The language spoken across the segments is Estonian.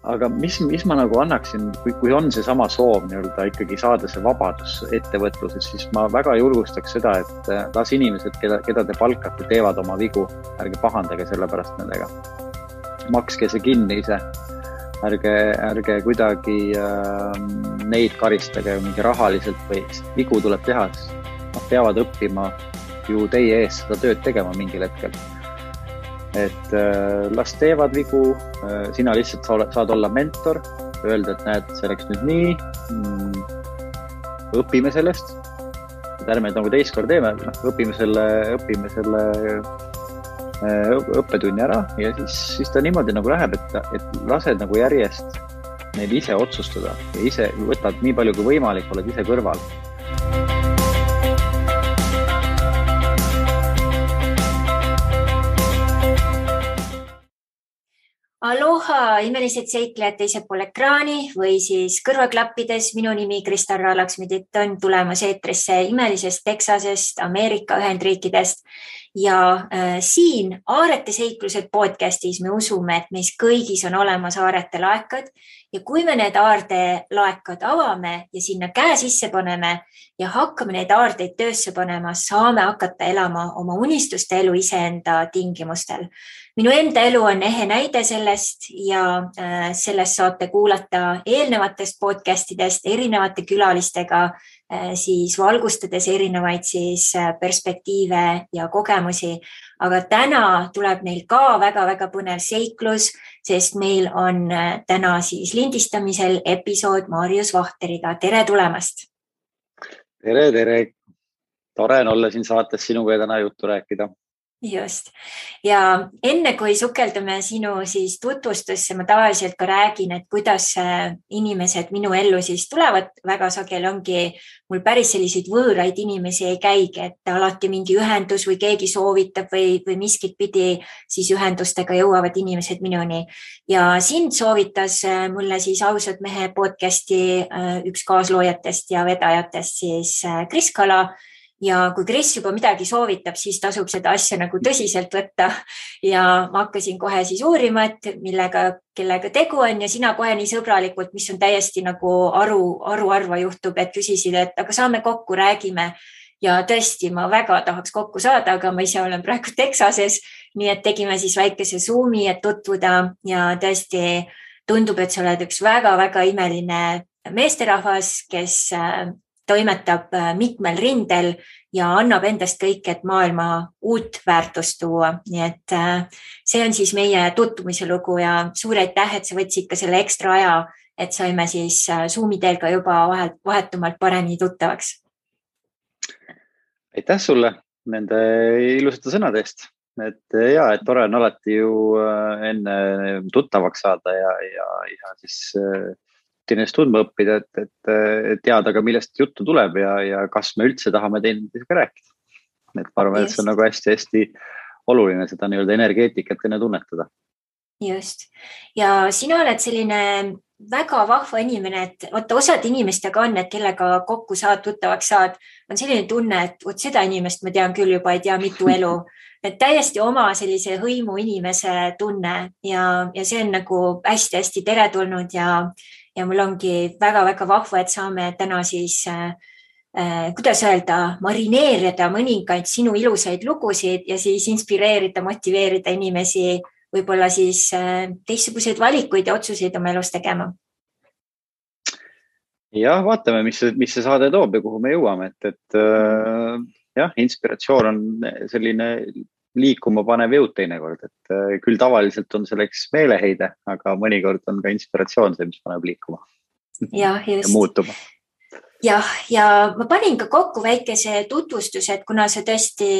aga mis ma nagu annaksin, kui on see sama soov nii-öelda ikkagi saada see vabadus ettevõtluses, siis ma väga julgustaks seda, et las inimesed, keda te palkate, teevad oma vigu, ärge pahandage selle pärast nendega. Makske see kinni ise, ärge kuidagi neid karistage mingi rahaliselt või vigu tuleb teha, nad peavad õppima ju teie ees seda tööd tegema mingil hetkel. Et las teevad vigu, sina lihtsalt saad olla mentor, öelda, et näed, see läks nüüd nii, õpime sellest, et ärme nagu teist kord teeme, õpime selle õppetunni ära ja siis ta niimoodi nagu läheb, et lased nagu järjest neil ise otsustada ja ise võtad nii palju kui võimalik, oled ise kõrval. Aloha, imelised seiklejad teisel pool ekraani või siis kõrvaklappides. Minu nimi Kristarra Laksmidit on tulemas eetrisse imelisest Texasest, Ameerika Ühendriikidest ja siin Aarete seiklused podcastis me usume, et meis kõigis on olemas aarete laekad ja kui me need aardelaekad avame ja sinna käe sisse paneme ja hakkame neid aardeid töösse panema, saame hakata elama oma unistuste elu iseenda tingimustel. Minu enda elu on ehe näide sellest ja sellest saate kuulata eelnevatest podcastidest erinevate külalistega, siis valgustades erinevaid siis perspektiive ja kogemusi. Aga täna tuleb neil ka väga-väga põnev seiklus, sest meil on täna siis lindistamisel episood Marius Vahteriga. Tere tulemast! Tere! Tore on olla siin saates sinuga ja täna juttu rääkida. Just. Ja enne kui sukeldume sinu siis tutvustusse, ma tavaliselt ka räägin, et kuidas inimesed minu ellu siis tulevad. Väga sageli ongi mul päris selliseid võõraid inimesi ei käigi, et alati mingi ühendus või keegi soovitab või miskit pidi siis ühendustega jõuavad inimesed minuni. Ja sind soovitas mulle siis Ausad mehe podcasti üks kaasloojatest ja vedajatest siis Kris Kala. Ja kui Kris juba midagi soovitab, siis tasub seda asja nagu tõsiselt võtta ja ma hakkasin kohe siis uurima, et kellega tegu on ja sina kohe nii sõbralikult, mis on täiesti nagu aruarva juhtub, et küsisid, et aga saame kokku, räägime ja tõesti, ma väga tahaks kokku saada, aga ma ise olen praegu Texases, nii et tegime siis väikese Zoomi, et tutvuda ja tõesti tundub, et sa oled üks väga-väga imeline meesterahvas, kes toimetab mitmel rindel ja annab endast kõik, et maailma uut väärtust tuua. Nii et see on siis meie tutvumise lugu ja suur aitäh, et sa võtsid ka selle ekstra aja, et saime siis Zoomi teel ka juba vahetumalt paremini tuttavaks. Aitäh sulle nende ilusate sõnade eest. Et tore on alati ju enne tuttavaks saada ja siis ennast tundma õppida, et teada ka, millest juttu tuleb ja kas me üldse tahame teineteisega rääkida. Et ma arvan, et see on nagu hästi oluline seda nii-öelda energeetikat enne tunnetada. Just. Ja sina oled selline väga vahva inimene, et osad inimestega on, et kellega kokku saad, tuttavaks saad, on selline tunne, et seda inimest ma tean küll juba, ei tea mitu elu. Et täiesti oma sellise hõimu inimese tunne ja see on nagu hästi teretulnud ja mul ongi väga-väga vahva, et saame täna siis, kuidas öelda, marineerida mõningaid sinu ilusaid lugusid ja siis inspireerida, motiveerida inimesi võib-olla siis teistsuguseid valikuid ja otsuseid oma elus tegema. Ja vaatame, mis see saade toob ja kuhu me jõuame. Inspiratsioon on selline liikuma panev jõud teinekord, et küll tavaliselt on selleks meeleheide, aga mõnikord on ka inspiratsioon see, mis paneb liikuma ja muutuma. Ja ma panin ka kokku väikese tutvustuse, et kuna see tõesti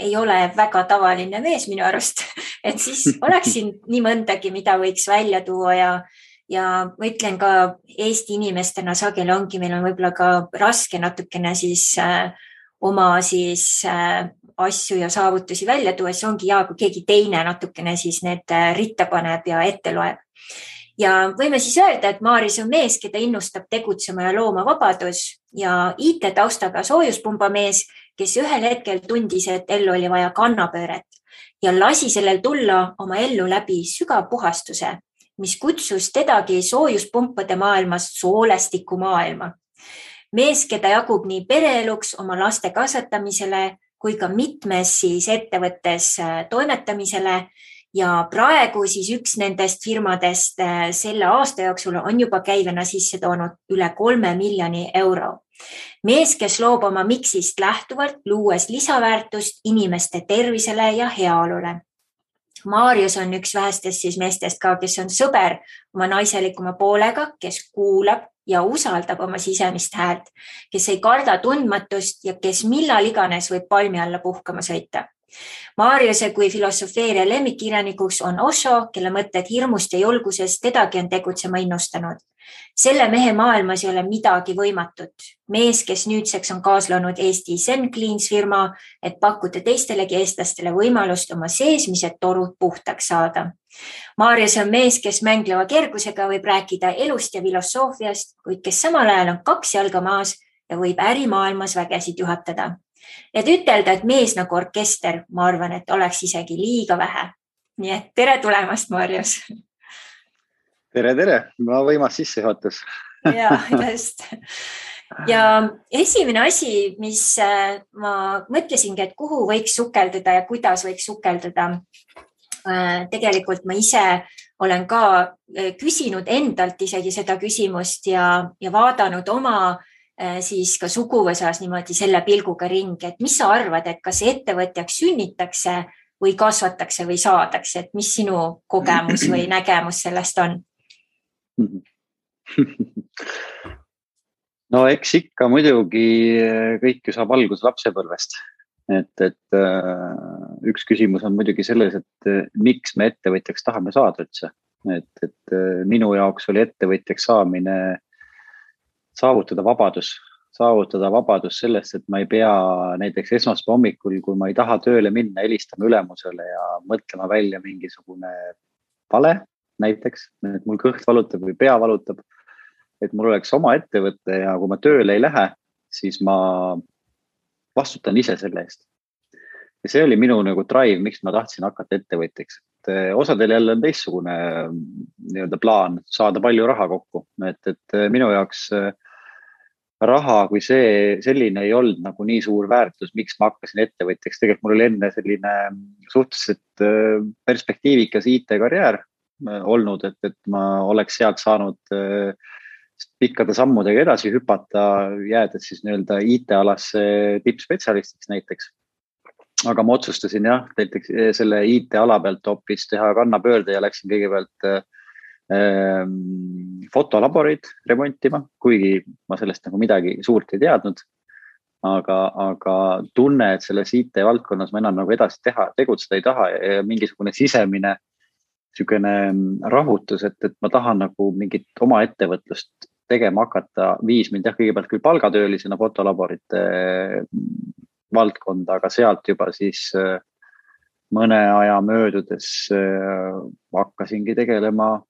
ei ole väga tavaline mees minu arust, et siis oleksin nii mõndagi, mida võiks välja tuua ja ma ütlen ka Eesti inimestena sageli ongi, meil on võib-olla ka raske natukene siis oma siis asju ja saavutusi välja tuua, see ongi kui keegi teine natukene siis need ritta paneb ja ette loeb. Ja võime siis öelda, et Marius on mees, keda innustab tegutsema ja looma vabadus ja IT-taustaga soojuspumba mees, kes ühel hetkel tundis, et ellu oli vaja kannapööret ja lasi sellel tulla oma ellu läbi sügav puhastuse mis kutsus tedagi soojuspumpade maailmast soolestiku maailma. Mees, keda jagub nii pereeluks, oma laste kasvatamisele kui ka mitmes siis ettevõttes toimetamisele. Ja praegu siis üks nendest firmadest selle aasta jooksul on juba käivena sisse toonud üle 3 miljoni euro. Mees, kes loob oma miksist lähtuvalt, luues lisaväärtust inimeste tervisele ja heaolule. Marius on üks vähestest siis meestest ka, kes on sõber oma naiselikuma poolega, kes kuulab ja usaldab oma sisemist häält, kes ei karda tundmatust ja kes millal iganes võib palmi alla puhkama sõita. Mariuse kui filosofeeria lemmikkirjanikuks on Osho, kelle mõtted hirmust ja julgusest tedagi on tegutsema innustanud. Selle mehe maailmas ei ole midagi võimatut. Mees, kes nüüdseks on kaasloonud Eesti Zen Cleans firma, et pakkuda teistelegi eestlastele võimalust oma seesmised torud puhtaks saada. Marius on mees, kes mängleva kergusega võib rääkida elust ja filosoofiast, kuid kes samal ajal on 2 jalga maas ja võib ärimaailmas vägesid juhatada. Et ütelda, et mees nagu orkester, ma arvan, et oleks isegi liiga vähe. Nii et tere tulemast, Marius! Tere! Ma võimas sisse juhatus. Ja, just. Ja esimene asi, mis ma mõtlesingi, et kuhu võiks sukelduda ja kuidas võiks sukelduda. Tegelikult ma ise olen ka küsinud endalt isegi seda küsimust ja vaadanud oma siis ka suguvõsas niimoodi selle pilguga ringi, et mis sa arvad, et kas ettevõtjaks sünnitakse või kasvatakse või saadakse, et mis sinu kogemus või nägemus sellest on? No eks ikka muidugi kõik ju saab alguse lapsepõlvest. Et üks küsimus on muidugi selles, et miks me ettevõtjaks tahame saada üldse. Et minu jaoks oli ettevõtjaks saamine saavutada vabadus sellest, et ma ei pea näiteks esmaspäeva hommikul, kui ma ei taha tööle minna, helistama ülemusele ja mõtlema välja mingisugune vale näiteks, et mul kõht valutab või pea valutab, et mul oleks oma ettevõte ja kui ma tööle ei lähe, siis ma vastutan ise selle eest. Ja see oli minu nagu drive, miks ma tahtsin hakata ettevõtjaks. Osadel jälle on teistsugune nii-öelda plaan saada palju raha kokku, et minu jaoks raha kui selline ei olnud nagu nii suur väärtus, miks ma hakkasin ettevõtjaks. Tegelikult mul oli enne selline suhteliselt perspektiivikas IT-karjäär olnud, et ma oleks sealt saanud pikkade sammudega edasi hüpata, jäädes siis nii-öelda IT-alasse tippspetsialistiks näiteks. Aga ma otsustasin näiteks selle IT-ala pealt hoopis teha kannapöörde ja läksin kõigepealt fotolaborid remontima, kuigi ma sellest nagu midagi suurt ei teadnud. Aga tunne, et selles IT-valdkonnas ma enam nagu edasi tegutseda ei taha ja mingisugune sisemine niisugune rahutus, et ma tahan nagu mingit oma ettevõtlust tegema hakata, viis mind kõigepealt küll palgatöölisena fotolaborite valdkonda, aga sealt juba siis mõne aja möödudes hakkasingi tegelema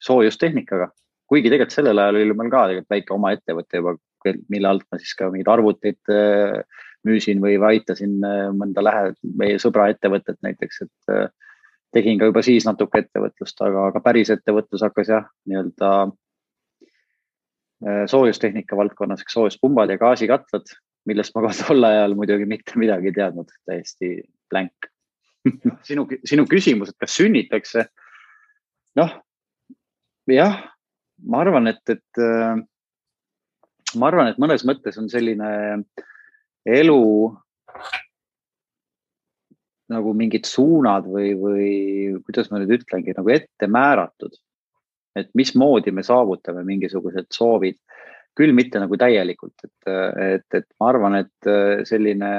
soojustehnikaga. Kuigi tegelikult sellel ajal oli meil ka väike oma ettevõte juba, mille alt ma siis ka mingid arvuteid müüsin või aitasin mõnda meie sõbra ettevõtet näiteks, et tegin ka juba siis natuke ettevõtlust, aga päris ettevõtlus hakkas nii-öelda soojustehnika valdkonnas, soojuspumbad ja gaasikatlad, millest ma tol ajal muidugi mitte midagi ei teadnud, täiesti blank. Sinu küsimus, et kas sünnitakse? Ma arvan, et mõnes mõttes on selline elu nagu mingid suunad või kuidas ma nüüd ütlengi, nagu ette määratud, et mismoodi me saavutame mingisugused soovid, küll mitte nagu täielikult, et ma arvan, et selline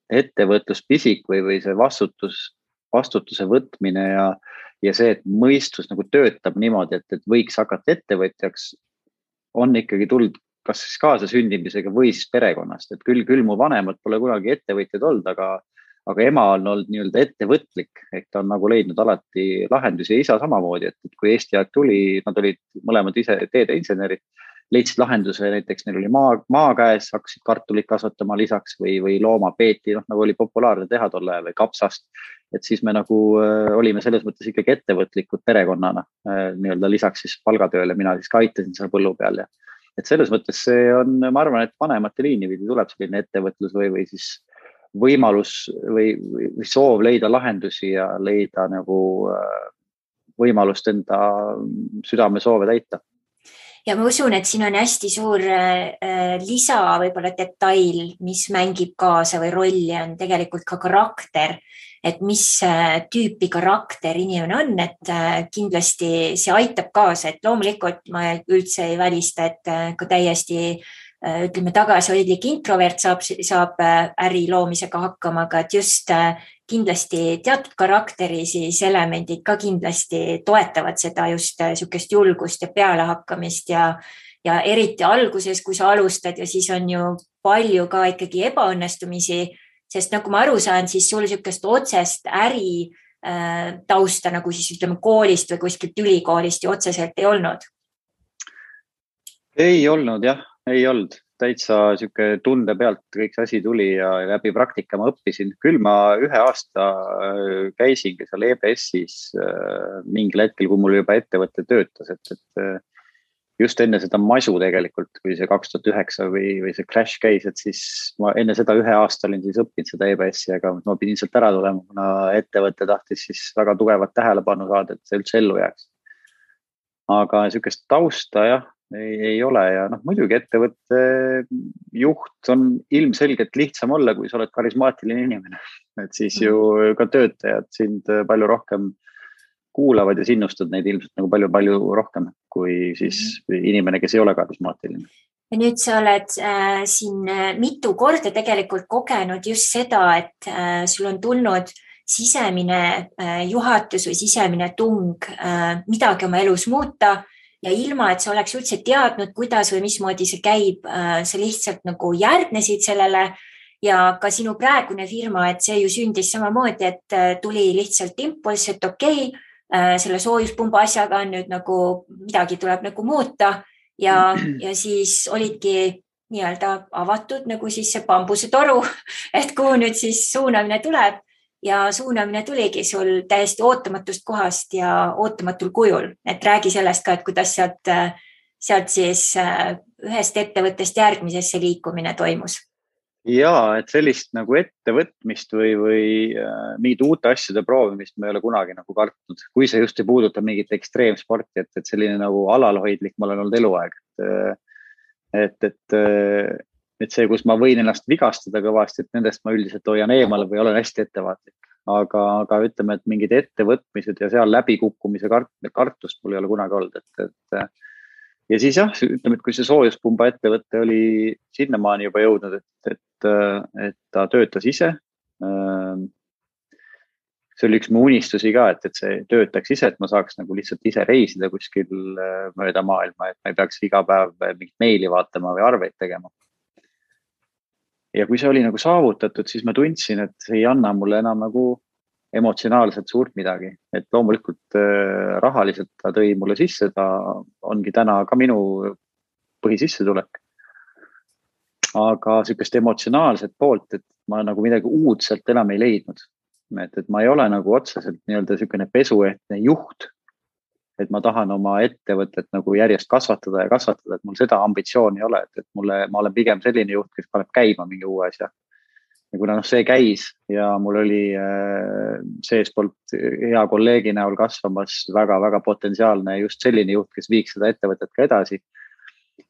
ettevõtluspisik või see vastutuse võtmine ja see, et mõistus nagu töötab niimoodi, et võiks hakata ettevõtjaks, on ikkagi tulnud kas siis kaasasündimisega või siis perekonnast, et küll mu vanemad pole kunagi ettevõtjad olnud, aga ema on olnud nii-öelda ettevõtlik, ehk ta on nagu leidnud alati lahendusi ja isa samamoodi, et kui Eesti aeg tuli, nad olid mõlemad ise teedeinsenerid, leidsid lahenduse, näiteks neil oli maa käes, hakkasid kartulit kasvatama lisaks või looma peeti, nagu oli populaarne teha tol ajal või kapsast et siis me nagu olime selles mõttes ikkagi ettevõtlikud perekonnana, nii-öelda lisaks siis palgatööle, mina siis ka aitasin seal põllu peal ja et selles mõttes see on, ma arvan, et vanemate liini pidi tuleb selline ettevõtlus või siis võimalus või soov leida lahendusi ja leida nagu võimalust enda südamesoove täita. Ja ma usun, et siin on hästi suur lisa võib-olla detail, mis mängib kaasa või rolli on tegelikult ka karakter, et mis tüüpi karakter inimene on, et kindlasti see aitab kaasa, et loomulikult ma üldse ei välista, et ka täiesti ütleme tagasihoidlik introvert saab äri loomisega hakkama, aga et just kindlasti teatud karakteri siis elemendid ka kindlasti toetavad seda just niisugust julgust ja pealehakkamist ja eriti alguses, kui sa alustad ja siis on ju palju ka ikkagi ebaõnnestumisi, sest nagu ma aru saan, siis sul niisugust otsest äri tausta nagu siis ütleme koolist või kuskilt ülikoolist ju otseselt ei olnud. Ei olnud jah, ei olnud. Täitsa siuke tunde pealt kõik see asi tuli ja läbi praktika ma õppisin. Küll ma 1 aasta käisingi seal EBS-is mingil hetkel, kui mul juba ettevõte töötas, et just enne seda masu tegelikult, kui see 2009 või see crash käis, et siis ma enne seda 1 aasta olin siis õppinud seda EBS-i, aga ma pidin sealt ära tulema, kuna ettevõte tahtis siis väga tugevat tähelepanu saada, et see üldse ellu jääks. Aga niisugust tausta jah, ei ole ja muidugi ettevõtte juht on ilmselgelt lihtsam olla, kui sa oled karismaatiline inimene, et siis ju ka töötajad sind palju rohkem kuulavad ja sinnustad neid ilmselt nagu palju rohkem kui siis inimene, kes ei ole karismaatiline. Ja nüüd sa oled siin mitu korda tegelikult kogenud just seda, et sul on tulnud sisemine juhatus või sisemine tung midagi oma elus muuta ja ilma, et sa oleks üldse teadnud, kuidas või mismoodi see käib, sa lihtsalt nagu järgnesid sellele ja ka sinu praegune firma, et see ju sündis samamoodi, et tuli lihtsalt impulss, et okei, selle soojuspumba asjaga on nüüd nagu midagi tuleb nagu muuta ja siis olidki nii-öelda avatud nagu siis see bambusetoru, et kuhu nüüd siis suunamine tuleb. Ja suunamine tuligi sul täiesti ootamatust kohast ja ootamatul kujul. Et räägi sellest ka, et kuidas sealt siis ühest ettevõttest järgmisesse liikumine toimus. Jaa, et sellist nagu ettevõtmist või mingid uute asjade proovimist ma ei ole kunagi nagu kartnud. Kui see just ei puuduta mingit ekstreemsporti, et selline nagu alalhoidlik ma olen olnud eluaeg. Et see, kus ma võin ennast vigastada kõvasti, et nendest ma üldiselt hoian eemale või olen hästi ettevaatlik. Aga ütleme, et mingid ettevõtmised ja seal läbikukkumise kartust mul ei ole kunagi olnud. Ja siis jah, ütleme, et kui see soojuspumba ettevõtte oli sinnamaani juba jõudnud, et ta töötas ise. See oli üks mu unistusi ka, et see töötaks ise, et ma saaks nagu lihtsalt ise reisida kuskil mööda maailma, et ma ei peaks iga päev mingit meili vaatama või arveid tegema. Ja kui see oli nagu saavutatud, siis ma tundsin, et see ei anna mulle enam nagu emotsionaalselt suurt midagi. Et loomulikult rahaliselt ta tõi mulle sisse, ta ongi täna ka minu põhisissetulek. Aga sellist emotsionaalset poolt, et ma nagu midagi uudselt enam ei leidnud. Et ma ei ole nagu otseselt nii-öelda selline pesuehtne juht, et ma tahan oma ettevõtet nagu järjest kasvatada, et mul seda ambitsiooni ei ole, et ma olen pigem selline juht, kes paneb käima mingi uue asja. Ja kuna see käis ja mul oli seespoolt hea kolleegi näol kasvamas väga potentsiaalne just selline juht, kes viiks seda ettevõtet ka edasi,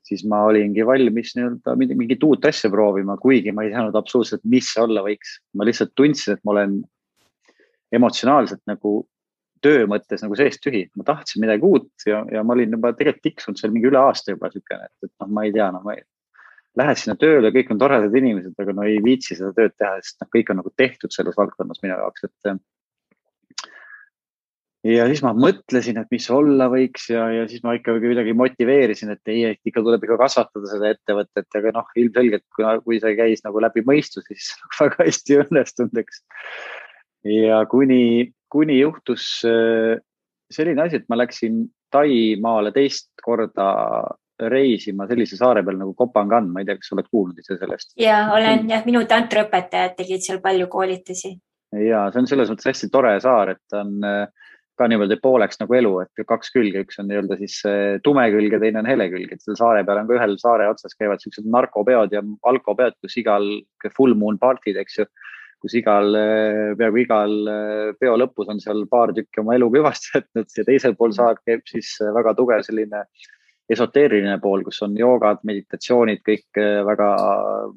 siis ma olingi valmis nii-öelda mingit uut asja proovima, kuigi ma ei teadnud absoluutselt, mis see olla võiks. Ma lihtsalt tundsin, et ma olen emotsionaalselt nagu töö mõttes nagu seest tühi. Ma tahtsin midagi uut ja ma olin juba tegelikult tiksunud seal mingi üle aasta juba sükene, et ma ei tea, ma lähed sinna tööle, kõik on toredad inimesed, aga ei viitsi seda tööd teha, sest kõik on nagu tehtud selles valdkonnas minu jaoks. Ja siis ma mõtlesin, et mis olla võiks ja siis ma ikka kuidagi motiveerisin, et ikka tuleb ikka kasvatada seda ettevõtet, aga ilmselgelt, kui see käis nagu läbi mõistu, siis väga hästi õnnestunud, eks. Ja kuni juhtus selline asi, et ma läksin Taimaale 2 korda reisima sellise saare peal nagu Kopangan. Ma ei tea, kas oled kuulnud ise sellest? Ja olen, minu tantraõpetajad tegid seal palju koolitusi. ja see on selles mõttes hästi tore saar, et ta on ka niimoodi pooleks nagu elu, et kaks külge, üks on nii-öelda siis tume külg ja teine on hele külg, et selle saare peal on ka ühel saare otsas käivad sellised narkopeod ja alkopeod, kus igal full moon party'd, eks ju, kus peaaegu igal peo lõpus on seal paar tükki oma elu kõvasti jätnud ja teisel pool saar käib siis väga tugev selline esoteeriline pool, kus on joogad, meditatsioonid, kõik väga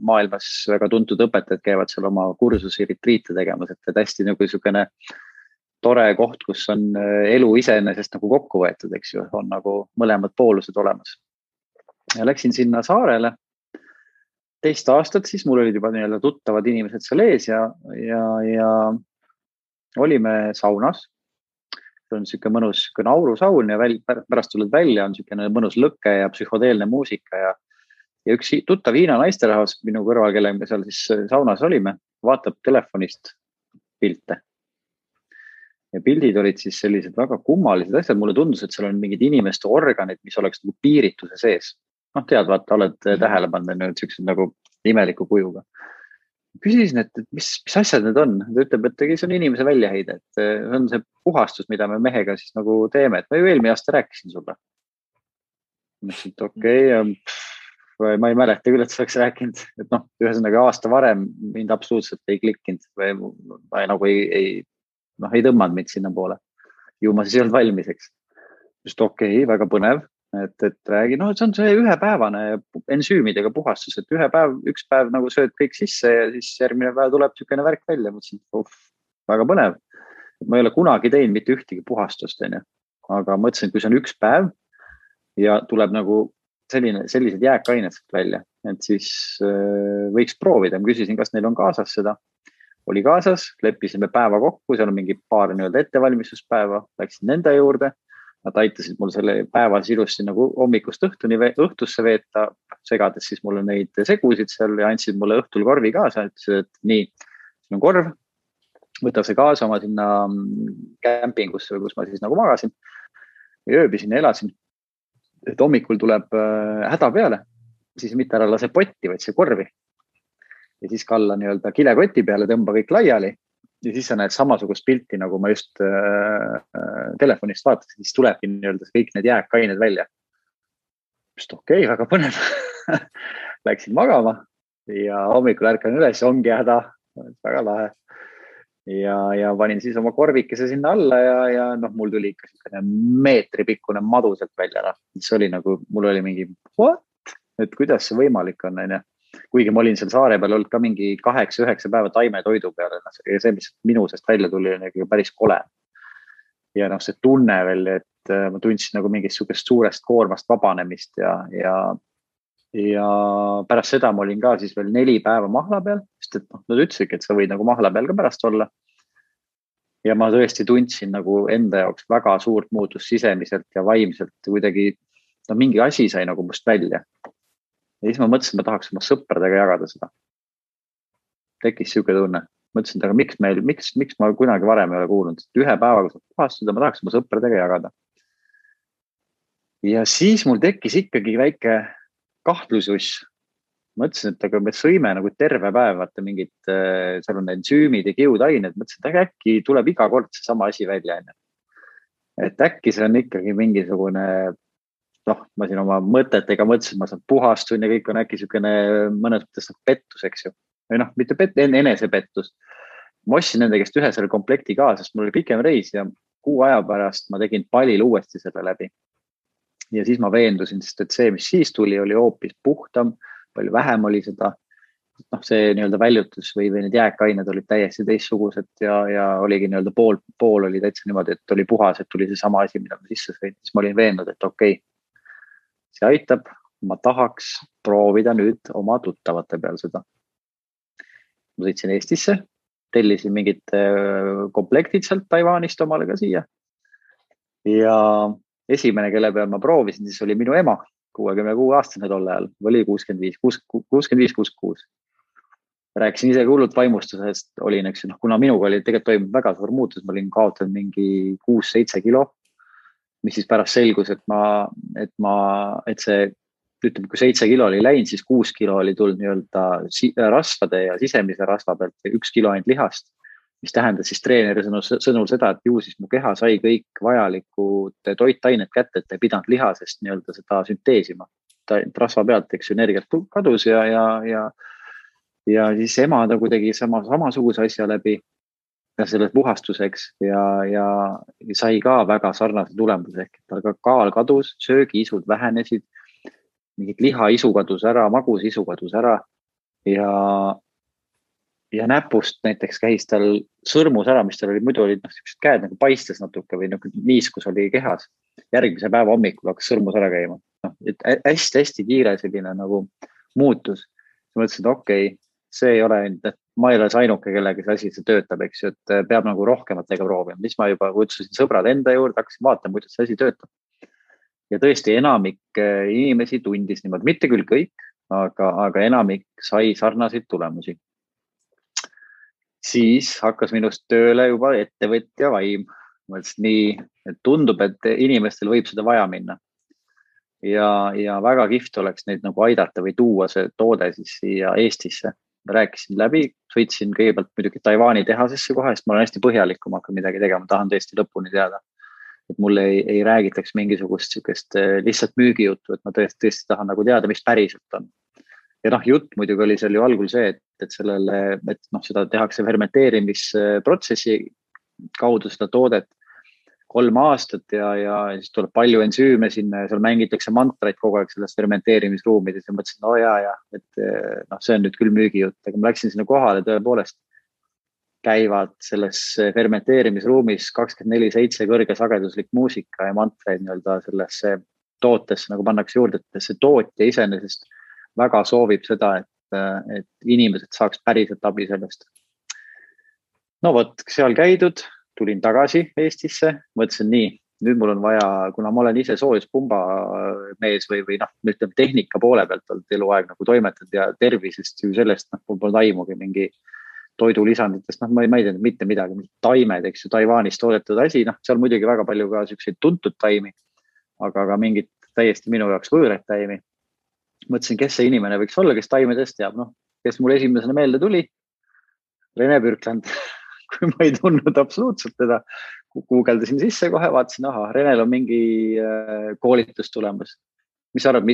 maailmas väga tuntud õpetajad käivad seal oma kursusi, retriite tegemas, et hästi nagu niisugune tore koht, kus on elu iseenesest nagu kokku võetud, eks ju, on nagu mõlemad poolused olemas. Ja läksin sinna saarele 2 aastat, siis mul olid juba nii-öelda tuttavad inimesed seal ees ja olime saunas. See on niisugune mõnus aurusaun ja pärast tuled välja, on niisugune mõnus lõkke ja psühhodeelne muusika ja üks tuttav Hiina naisterahvas minu kõrval, kelle me seal siis saunas olime, vaatab telefonist pilte. Ja pildid olid siis sellised väga kummalised asjad. Mulle tundus, et seal on mingid inimeste organid, mis oleks nagu piirituse sees. Noh, tead, vaata, oled tähele pannud niisugused nagu imeliku kujuga. Küsisin, et mis asjad need on? Ta ütleb, et see on inimese väljaheide, et see on see puhastus, mida me mehega siis nagu teeme. Et ma ju eelmine aasta rääkisin sulle. Mõtlesin, et okei, ma ei mäleta küll, et sa oleks rääkinud. Et noh, ühesõnaga aasta varem mind absoluutselt ei klikkinud või nagu ei tõmmanud mind sinna poole. Ju ma siis ei olnud valmis, eks. Just okei, väga põnev, et räägi, see on see ühepäevane ensüümidega puhastus, et üks päev nagu sööd kõik sisse ja siis järgmine päev tuleb niisugune värk välja. Mõtlesin, väga põnev. Ma ei ole kunagi teinud mitte ühtegi puhastust, aga mõtlesin, et kui see on üks päev ja tuleb nagu sellised jääkained välja, et siis võiks proovida. Ma küsisin, kas neil on kaasas seda. Oli kaasas, leppisime päeva kokku, seal on mingi paar nii-öelda ettevalmistuspäeva, läksin nende juurde. Nad aitasid mul selle päevas ilusti nagu hommikust õhtusse veeta, segades siis mulle neid segusid seal ja andsid mulle õhtul korvi kaasa. Ütlesid, et nii, siin on korv, võta see kaasa oma sinna kämpingusse, kus ma siis nagu magasin. Ja ööbisin ja elasin, et hommikul tuleb häda peale, siis mitte ära lase potti, vaid see korvi. Ja siis kalla nii-öelda kilekoti peale, tõmba kõik laiali ja siis sa näed samasugust pilti, nagu ma just telefonist vaatasin, siis tulebki nii-öelda kõik need jääkained välja. Just okei, väga põnev. Läksin magama ja hommikul ärkan üles, ongi häda, väga lahe. Ja panin siis oma korvikese sinna alla ja mul tuli ikka meetri pikkune madu sealt välja. Mis oli nagu, mul oli mingi, what? Et kuidas see võimalik on, kuigi ma olin seal saare peal olnud ka mingi 8-9 päeva taimetoidu peale. Ja see, mis minu seest välja tuli, oli päris kole. Ja see tunne veel, et ma tundsin nagu mingist suurest koormast vabanemist ja pärast seda ma olin ka siis veel 4 päeva mahla peal, sest et nad ütlesidki, et sa võid nagu mahla peal ka pärast olla. Ja ma tõesti tundsin nagu enda jaoks väga suurt muutust sisemiselt ja vaimselt. Kuidagi mingi asi sai nagu must välja. Ja siis ma mõtlesin, et ma tahaks oma sõpradega jagada seda. Tekkis siuke tunne. Mõtlesin, aga miks ma kunagi varem ei ole kuulnud. Ühe päevaga saab puhastuda, ma tahaks oma sõpradega jagada. Ja siis mul tekkis ikkagi väike kahtlusus. Mõtlesin, et aga me sõime nagu terve päev, vaata mingid, seal on ensüümid ja kiudained. Mõtlesin, et äkki tuleb iga kord see sama asi välja. Et äkki see on ikkagi mingisugune ma siin oma mõtetega mõtlesin, ma saan puhastun ja kõik on äkki niisugune mõnes mõttes pettus, eks ju. Või mitte enesepettus. Ma ostsin nende käest ühe selle komplekti ka, sest mul oli pikem reis ja 6 aja pärast ma tegin palil uuesti selle läbi. Ja siis ma veendusin, sest et see, mis siis tuli, oli hoopis puhtam, palju vähem oli seda. See nii-öelda väljutus või need jääkained olid täiesti teistsugused ja oligi nii-öelda pool oli täitsa niimoodi, et oli puhas, et tuli see sama asi, mida ma sisse sõin. Siis ma olin veennud, et okei, see aitab, ma tahaks proovida nüüd oma tuttavate peal seda. Ma sõitsin Eestisse, tellisin mingid komplektid sealt Taiwanist omale ka siia. Ja esimene, kelle peal ma proovisin, siis oli minu ema, 66-aastane tolle ajal, oli 65-66. Rääkisin ise hullult vaimustusest, olin, eks, kuna minuga oli tegelikult toimunud väga suur muutus, ma olin kaotanud mingi 6-7 kilo, mis siis pärast selgus, et see, ütleme, kui 7 kilo oli läinud, siis 6 kilo oli tulnud nii-öelda rasvade ja sisemise rasva pealt ja 1 kilo ainult lihast. mis tähendas siis treeneri sõnul seda, et ju siis mu keha sai kõik vajalikud toitained kätte, et ei pidanud lihasest nii-öelda seda sünteesima. Rasva pealt, eks ju, energiat kadus ja siis ema nagu tegi samasuguse asja läbi ja selle puhastuseks ja sai ka väga sarnase tulemuse ehk tal ka kaal kadus, söögiisud vähenesid, mingid lihaisu kadus ära, magusisu kadus ära ja näpust näiteks käis tal sõrmus ära, mis tal oli, muidu olid sellised käed nagu paistes natuke või nagu niiskus oli kehas. Järgmise päeva hommikul hakkas sõrmus ära käima. Hästi-hästi kiire selline nagu muutus. Mõtlesin, et okei, see ei ole, et ma ei ole see ainuke, kellega see asi see töötab, eks ju, et peab nagu rohkematega proovima. Siis ma juba kutsusin sõbrad enda juurde, hakkasin vaatama, kuidas see asi töötab. Ja tõesti enamik inimesi tundis niimoodi, mitte küll kõik, aga enamik sai sarnaseid tulemusi. Siis hakkas minust tööle juba ettevõtja vaim. Mõtlesin nii, et tundub, et inimestel võib seda vaja minna. Ja väga kihvt oleks neid nagu aidata või tuua see toode siis siia Eestisse. Rääkisin läbi, sõitsin kõigepealt muidugi Taiwani tehasesse kohe, sest ma olen hästi põhjalik, kui ma hakkan midagi tegema, tahan tõesti lõpuni teada. Et mulle ei räägitaks mingisugust lihtsalt müügijuttu, et ma tõesti tahan nagu teada, mis päriselt on. Ja jutt muidugi oli seal ju algul see, et seda tehakse fermenteerimisprotsessi kaudu seda toodet 3 aastat ja siis tuleb palju ensüüme sinna ja seal mängitakse mantraid kogu aeg selles fermenteerimisruumides ja mõtlesin, et see on nüüd küll müügijutt, aga ma läksin sinna kohale tõepoolest käivad selles fermenteerimisruumis 24/7 kõrgesageduslik muusika ja mantraid nii-öelda sellesse tootesse nagu pannakse juurde, et see tootja iseenesest väga soovib seda, et inimesed saaks päriselt abi sellest. No vot, seal käidud, tulin tagasi Eestisse, mõtlesin nii, nüüd mul on vaja, kuna ma olen ise soojuspumba mees või ütleme tehnika poole pealt olnud eluaeg nagu toimetanud ja tervisest ju sellest, mul pole aimugi mingi toidulisanditest, ma ei tea mitte midagi, taimed, eks ju, Taiwanis toodetud asi, seal muidugi väga palju ka selliseid tuntud taimi, aga mingid täiesti minu jaoks võõrad taimi. Mõtlesin, kes see inimene võiks olla, kes taimedest teab, kes mul esimesena meelde tuli, Rene Bürkland, kui ma ei tundnud absoluutselt teda, guugeldasin sisse kohe, vaatasin, Renel on mingi koolitus tulemas. Mis arvad,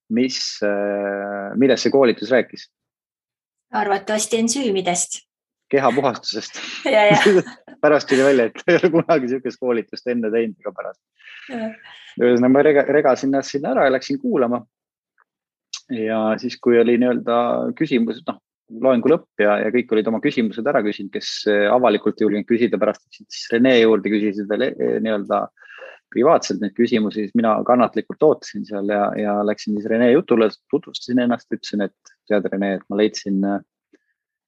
millest see koolitus rääkis? Arvatavasti ensüümidest. Kehapuhastusest. Ja. Pärast tuli välja, et ei ole kunagi niisugust koolitust enne teinud ega pärast. Ühesõnaga ma regasin ennast sinna ära ja läksin kuulama. Ja siis, kui oli nii-öelda küsimused, loengu lõpp ja kõik olid oma küsimused ära küsinud, kes avalikult julgenud küsida pärast, siis Rene juurde küsisid veel nii-öelda privaatselt neid küsimusi, siis mina kannatlikult ootasin seal ja läksin siis Rene jutule, tutvustasin ennast, ütlesin, et tead Rene, et ma leidsin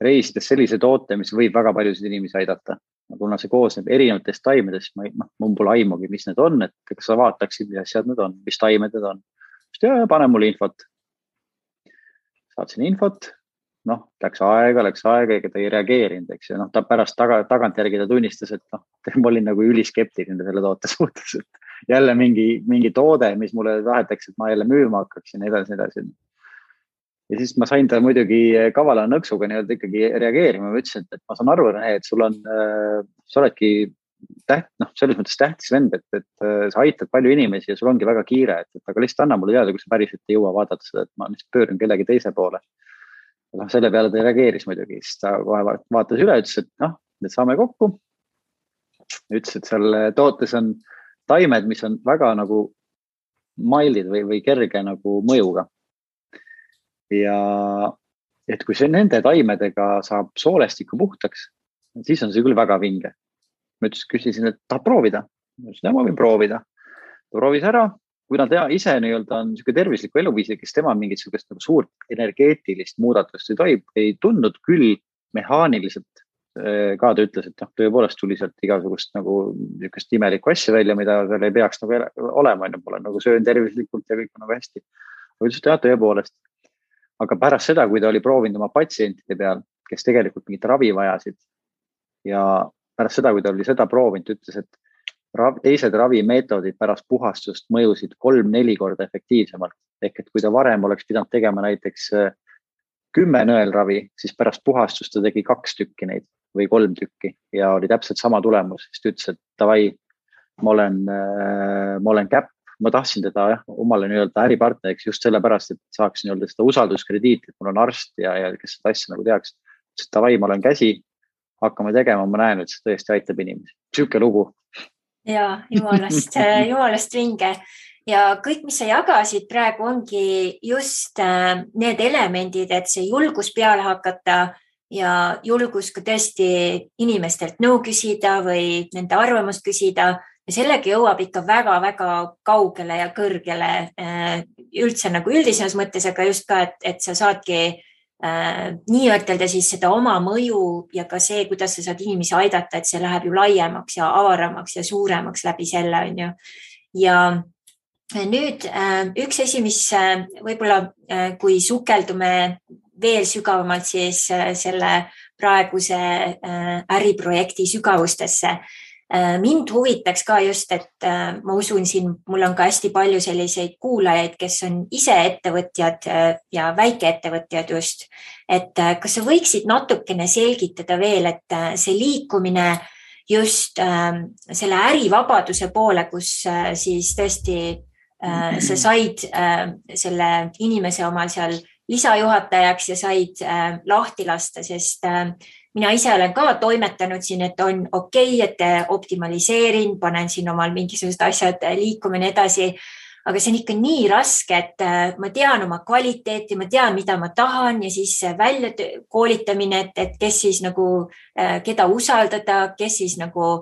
reisides sellise toote, mis võib väga paljusid inimesi aidata. Kuna see koosneb erinevatest taimedest, mul pole aimugi, mis need on, et kas sa vaataksid, mis asjad need on, mis taimed need on. Ja pane mulle infot. Saatsin infot, läks aega, ega ta ei reageerinud, eks ju. Ta pärast tagantjärgi ta tunnistas, et ma olin nagu üliskeptiline selle toote suhtes, et jälle mingi toode, mis mulle tahetakse, et ma jälle müüma hakkaksin edasi. Ja siis ma sain ta muidugi kavala nõksuga nii-öelda ikkagi reageerima. Ma ütlesin, et ma saan aru, et sa oledki selles mõttes tähtis vend, et sa aitad palju inimesi ja sul ongi väga kiire, aga lihtsalt anna mulle teada, kui sa päriselt ei jõua vaadata seda, et ma lihtsalt pöörun kellegi teise poole. Selle peale ta reageeris muidugi, siis ta kohe vaatas üle, ütles, et nüüd saame kokku. Ütles, et seal tootes on taimed, mis on väga nagu maildid või kerge nagu mõjuga. Ja et kui see nende taimedega saab soolestiku puhtaks, siis on see küll väga vinge. Ma küsisin, et tahab proovida. Ma ütlesin, ma võin proovida. Ta proovis ära, kui nad ise nii-öelda on niisugune tervisliku eluviisi, kes tema mingit niisugust nagu suurt energeetilist muudatust ei tundnud küll mehaaniliselt. Ka ta ütles, et tõepoolest tuli sealt igasugust nagu niisugust imelikku asja välja, mida seal ei peaks nagu olema. Pole nagu söön tervislikult ja kõik on nagu hästi. Ma ütlesin, et tõepoolest. Aga pärast seda, kui ta oli proovinud oma patsientide peal, kes tegelikult mingit ravi vajasid ja pärast seda, kui ta oli seda proovinud, ütles, et teised ravimeetodid pärast puhastust mõjusid 3-4 korda efektiivsemalt. Ehk et kui ta varem oleks pidanud tegema näiteks 10 nõelravi, siis pärast puhastust ta tegi 2 tükki neid. või 3 tükki ja oli täpselt sama tulemus. Siis ta ütles, et davai, ma olen käpp, ma tahtsin teda omale nii-öelda äripartneriks just sellepärast, et saaks nii-öelda seda usalduskrediiti, et mul on arst ja kes seda asja nagu teaks. Ütles, et davai, ma olen käsi, hakkame tegema, ma näen, et see tõesti aitab inimesi. Siuke lugu. Ja jumalast vinge. Ja kõik, mis sa jagasid praegu, ongi just need elemendid, et see julgus peale hakata ja julgus ka tõesti inimestelt nõu küsida või nende arvamust küsida. Ja sellega jõuab ikka väga-väga kaugele ja kõrgele üldse nagu üldisemas mõttes, aga just ka, et sa saadki nii ütelda siis seda oma mõju ja ka see, kuidas sa saad inimesi aidata, et see läheb ju laiemaks ja avaramaks ja suuremaks läbi selle, on ju. Ja nüüd üks asi, mis võib-olla kui sukeldume veel sügavamalt siis selle praeguse äriprojekti sügavustesse. Mind huvitaks ka just, et ma usun siin, mul on ka hästi palju selliseid kuulajaid, kes on ise ettevõtjad ja väikeettevõtjad just. Et kas sa võiksid natukene selgitada veel, et see liikumine just selle ärivabaduse poole, kus siis tõesti sa said selle inimese omal seal lisajuhatajaks ja said lahti lasta, sest mina ise olen ka toimetanud siin, et on okei, et optimaliseerin, panen siin omal mingisugused asjad liikuma ja nii edasi, aga see on ikka nii raske, et ma tean oma kvaliteeti, ma tean, mida ma tahan ja siis välja koolitamine, et kes siis nagu, keda usaldada, kes siis nagu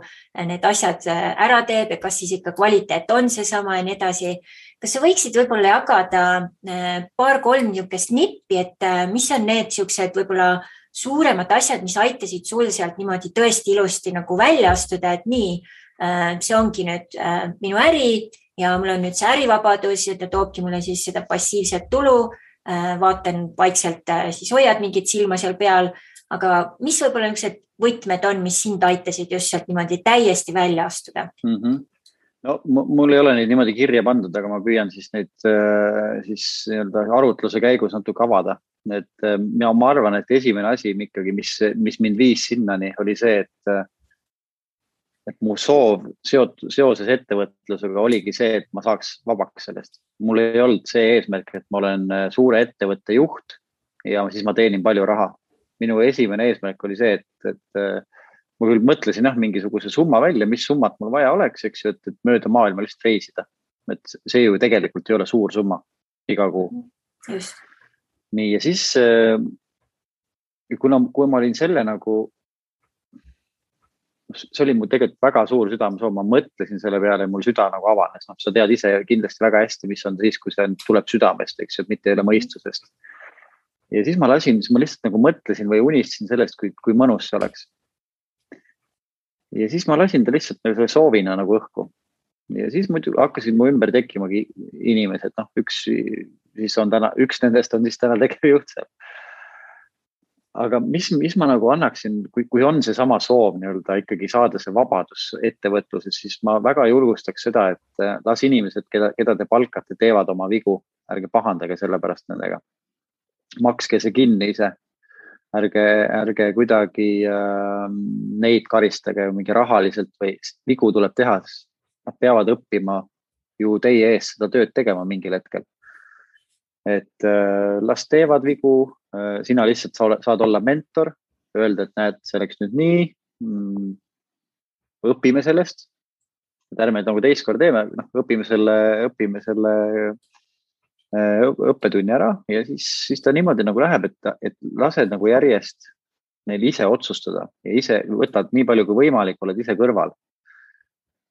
need asjad ära teeb ja kas siis ikka kvaliteet on seesama ja nii edasi. Kas sa võiksid võib-olla jagada 2-3 niisugust nippi, et mis on need niisugused võib-olla suuremad asjad, mis aitasid sul sealt niimoodi tõesti ilusti nagu välja astuda, et nii, see ongi nüüd minu äri ja mul on nüüd see ärivabadus ja ta toobki mulle siis seda passiivset tulu, vaatan vaikselt, siis hoiad mingit silma seal peal, aga mis võib-olla niisugused võtmed on, mis sind aitasid just sealt niimoodi täiesti välja astuda? No, mul ei ole neid niimoodi kirja pandud, aga ma püüan siis neid siis nii-öelda arutluse käigus natuke avada. Et ma arvan, et esimene asi ikkagi, mis mind viis sinnani, oli see, et mu soov seoses ettevõtlusega oligi see, et ma saaks vabaks sellest. Mul ei olnud see eesmärk, et ma olen suure ettevõtte juht ja siis ma teenin palju raha. Minu esimene eesmärk oli see, et ma küll mõtlesin mingisuguse summa välja, mis summat mul vaja oleks, eks ju, et mööda maailma lihtsalt reisida. Et see ju tegelikult ei ole suur summa iga kuu. Just. Nii, ja siis kui ma olin selle nagu, see oli mul tegelikult väga suur südamesoov, ma mõtlesin selle peale ja mul süda nagu avanes. No, sa tead ise kindlasti väga hästi, mis on siis, kui see tuleb südamest, eks ju, et mitte ei ole mõistusest. Ja siis ma lihtsalt nagu mõtlesin või unistasin sellest, kui mõnus see oleks. Ja siis ma lasin ta lihtsalt nagu soovina nagu õhku. Ja siis muidu hakkasid mu ümber tekkimagi inimesed. No, üks nendest on siis täna tegevjuht seal. Aga mis ma nagu annaksin, kui on see sama soov nii-öelda ikkagi saada see vabadus ettevõtluses, siis ma väga julgustaks seda, et las inimesed, keda te palkate, teevad oma vigu. Ärge pahandage selle pärast nendega. Makske see kinni ise. Ärge kuidagi neid karistage mingi rahaliselt või vigu tuleb teha. Nad peavad õppima ju teie ees seda tööd tegema mingil hetkel. Et las teevad vigu, sina lihtsalt saad olla mentor, öelda, et näed, see oleks nüüd nii, õpime sellest, et ärme nagu teist kord teeme, õpime selle õppetunni ära ja siis ta niimoodi nagu läheb, et lased nagu järjest neil ise otsustada ja ise võtad nii palju kui võimalik, oled ise kõrval.